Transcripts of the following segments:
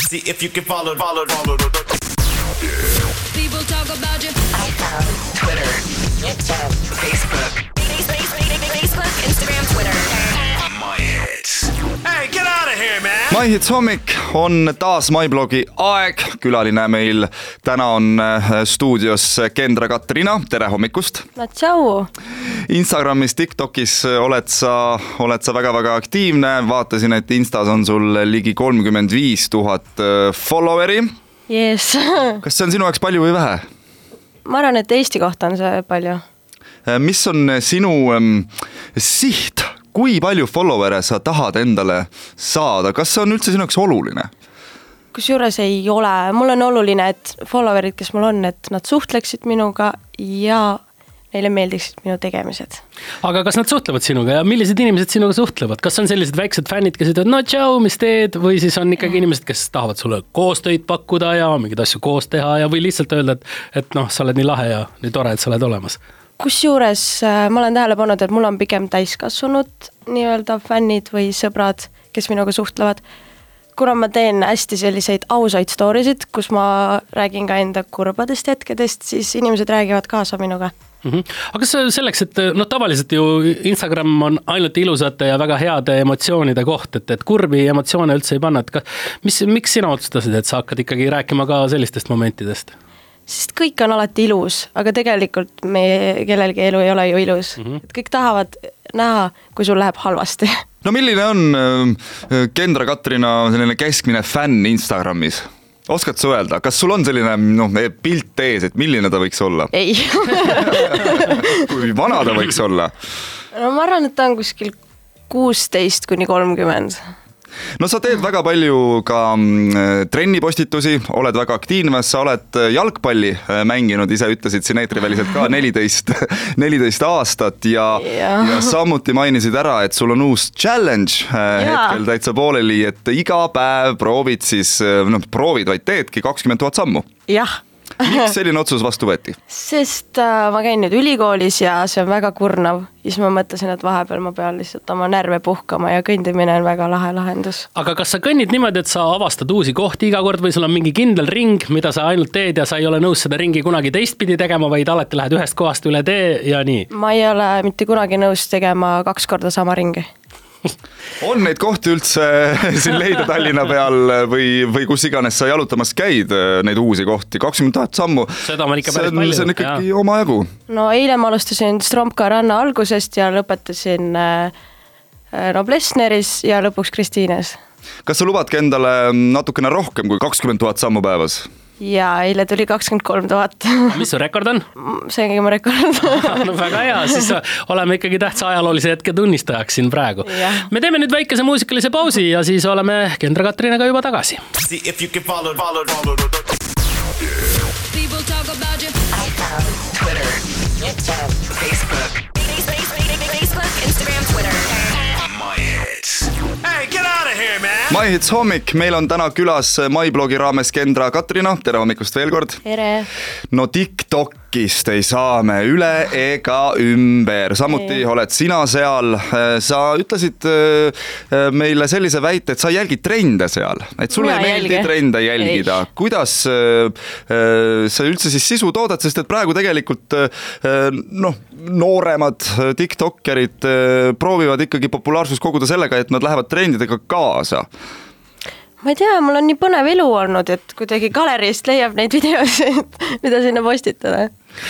See if you can follow. People talk about you. iPhone, Twitter, YouTube, Facebook, Instagram, Twitter. My hits. Hey, get out of here, man! My Hits hommik on taas MyBlogi aeg. Külaline meil täna on stuudios Kendra Katrina. Tere hommikust! No tšau! Instagramis, TikTokis oled sa väga-väga aktiivne. Vaatasin, et Instas on sul ligi 35 000 followeri. Yes. Kas see on sinu jaoks palju või vähe? Ma arvan, et Eesti kohta on see palju. Mis on sinu siht? Kui palju followere sa tahad endale saada? Kas see on üldse sinu jaoks oluline? Kusjuures ei ole. Mul on oluline, et followerid, kes mul on, et nad suhtleksid minuga ja neile meeldiksid minu tegemised. Aga kas nad suhtlevad sinuga ja millised inimesed sinuga suhtlevad? Kas on sellised väiksed fännid, kes ütlevad, no tšau, mis teed? Või siis on ikkagi inimesed, kes tahavad sulle koostöid pakkuda ja mingeid asju koos teha ja või lihtsalt öelda, et noh, sa oled nii lahe ja nii tore, et sa oled olemas? Kusjuures ma olen tähele pannud, et mul on pigem täiskasvanud nii-öelda fännid või sõbrad, kes minuga suhtlevad. Kuna ma teen hästi selliseid ausaid storysid, kus ma räägin ka enda kurbadest hetkedest, siis inimesed räägivad kaasa minuga. Aga selleks, et tavaliselt ju Instagram on ainult ilusate ja väga heade emotsioonide koht, et kurbi emotsioone üldse ei panna. Miks sina otsustasid, et sa hakkad ikkagi rääkima ka sellistest momentidest? Sest kõik on alati ilus, aga tegelikult meie kellelgi elu ei ole ju ilus. Et kõik tahavad näha, kui sul läheb halvasti. No milline on Kendra Katrina selline keskmine fänn Instagramis? Oskad sa öelda, kas sul on selline pilt ees, et milline ta võiks olla? Ei. Kui vana ta võiks olla? No ma arvan, et ta on kuskil 16–30. No sa teed väga palju ka trennipostitusi, oled väga aktiivne, sa oled jalgpalli mänginud, ise ütlesid siin eetriväliselt ka 14 aastat ja samuti mainisid ära, et sul on uus challenge hetkel täitsa pooleli, et iga päev proovid siis, proovid vaid teedki 20 000 sammu. Jah. Miks selline otsus vastu võeti? Sest ma käin nüüd ülikoolis ja see on väga kurnav. Siis ma mõtlesin, et vahepeal ma pean lihtsalt oma närve puhkama ja kõndimine on väga lahe lahendus. Aga kas sa kõnnid niimoodi, et sa avastad uusi kohti iga kord või sul on mingi kindel ring, mida sa ainult teed ja sa ei ole nõus seda ringi kunagi teistpidi tegema, vaid alati lähed ühest kohast üle tee ja nii? Ma ei ole mitte kunagi nõus tegema 2 korda sama ringi. On neid kohti üldse siin leida Tallinna peal või kus iganes sa jalutamas käid, neid uusi kohti, 20 000 sammu. Seda on ikka päris palju. See on ikkagi oma jagu. No eile ma alustasin Stromka ranna algusest ja lõpetasin Noblessneris ja lõpuks Kristiines. Kas sa lubadki endale natukene rohkem kui 20 000 sammu päevas? Ja eile tuli 23 000. Mis su rekord on? See ongi mu rekord. No väga hea, siis oleme ikkagi tähtsa ajaloolise hetke tunnistajaks siin praegu. Me teeme nüüd väikese muusikalise pausi ja siis oleme Kendra Katrinaga juba tagasi. See if you can follow. People talk about you. iPhone, Twitter, YouTube, Facebook, Instagram, Twitter. My hits. Hey, get out of here, man! My Hits hommik, meil on täna külas MyBlogi raames Kendra Katrina. Tere hommikust veel kord. Tere. No TikTokist ei saa me üle ega ümber. Samuti oled sina seal. Sa ütlesid meile sellise väite, et sa jälgid trende seal. Et sulle ei meeldi trende jälgida. Kuidas sa üldse siis sisu toodad, sest et praegu tegelikult nooremad TikTokerid proovivad ikkagi populaarsus koguda sellega, et nad lähevad trendidega kaasa. Ma ei tea, mul on nii põnev elu olnud, et kuidagi galeriist leiab neid videosid, mida sinna postitada.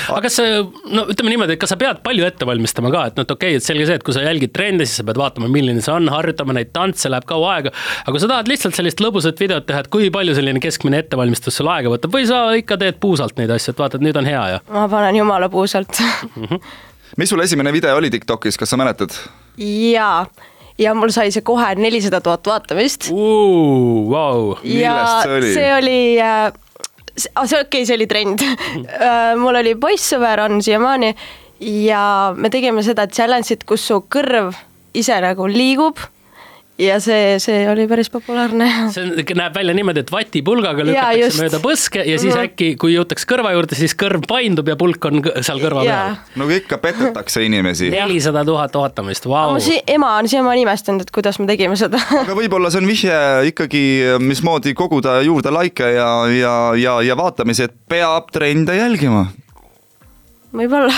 Aga kas ütleme niimoodi, et kas sa pead palju ette valmistama ka, et okei, et selge see, et kui sa jälgid trende, siis sa pead vaatama, milline see on, harjutama neid tantse, läheb kaua aega, aga kui sa tahad lihtsalt sellist lõbusat videot teha, et kui palju selline keskmine ettevalmistus sul aega võtab või sa ikka teed puusalt neid asju, et vaata, et nüüd on hea ja? Ma panen jumala puusalt. Mis sul esimene video oli TikTokis, kas sa mäletad? Jaa. Ja mul sai see kohe 400 000 vaatamist. Wow. Millest see oli? See oli, see oli trend. Mul oli poissõber, on siiamaani, ja me tegime seda challenge'it, kus su kõrv ise nagu liigub ja see oli päris populaarne. See näeb välja niimoodi, et vatipulgaga lükatakse mööda põske ja siis äkki, kui jõutakse kõrva juurde, siis kõrv paindub ja pulk on seal kõrva peal. No ikka petetakse inimesi. 400 000 ootamist, vau. Ema on siiamaani imestanud, et kuidas me tegime seda. Aga võib-olla see on vihje ikkagi, mismoodi koguda juurde laike ja vaatamisi, et peab trende jälgima. Võib-olla.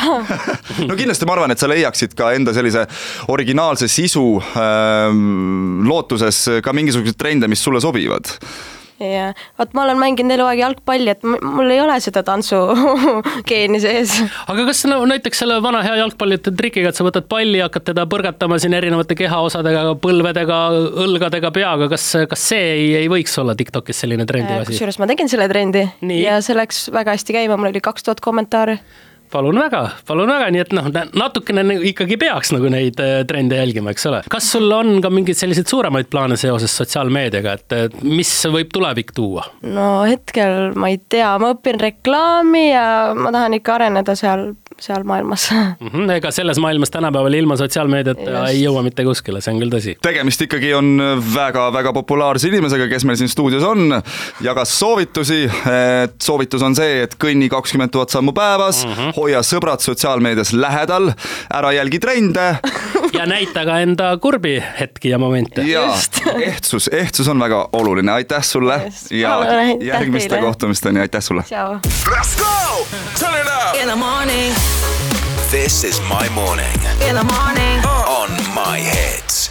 No kindlasti ma arvan, et sa leiaksid ka enda sellise originaalse sisu lootuses ka mingisugused trende, mis sulle sobivad. Ja, vaat ma olen mänginud eluaeg jalgpalli, et mul ei ole seda tantsugeeni sees. Aga kas näiteks selle vana hea jalgpallite trikiga, et sa võtad palli ja hakkad teda põrgatama siin erinevate kehaosadega, põlvedega, õlgadega, peaga, kas see ei võiks olla TikTokis selline trendi asi? Kusjuures ma tegin selle trendi ja see läks väga hästi käima, mul oli 2000 kommentaari. Palun väga, nii et natukene ikkagi peaks nagu neid trende jälgima, eks ole. Kas sul on ka mingeid selliseid suuremaid plaane seoses sotsiaalmeediaga, et mis võib tulevik tuua? No hetkel ma ei tea, ma õpin reklaami ja ma tahan ikka areneda seal maailmas. Ega selles maailmas tänapäeval ilma sotsiaalmeediat ei jõua mitte kuskile, see on küll tõsi. Tegemist ikkagi on väga populaarse inimesega, kes meil siin stuudios on, jagas soovitusi, et soovitus on see, et kõnni 20 000 sammu päevas, hoia sõbrad sotsiaalmeedias lähedal, ära jälgi trende. Ja näita ka enda kurbi hetki ja momente. Ja, ehtsus on väga oluline, aitäh sulle ja järgmiste kohtumisteni, aitäh sulle. Ciao. Let's go! Turn it up! In the morning. This is my morning. In the morning. On my hits.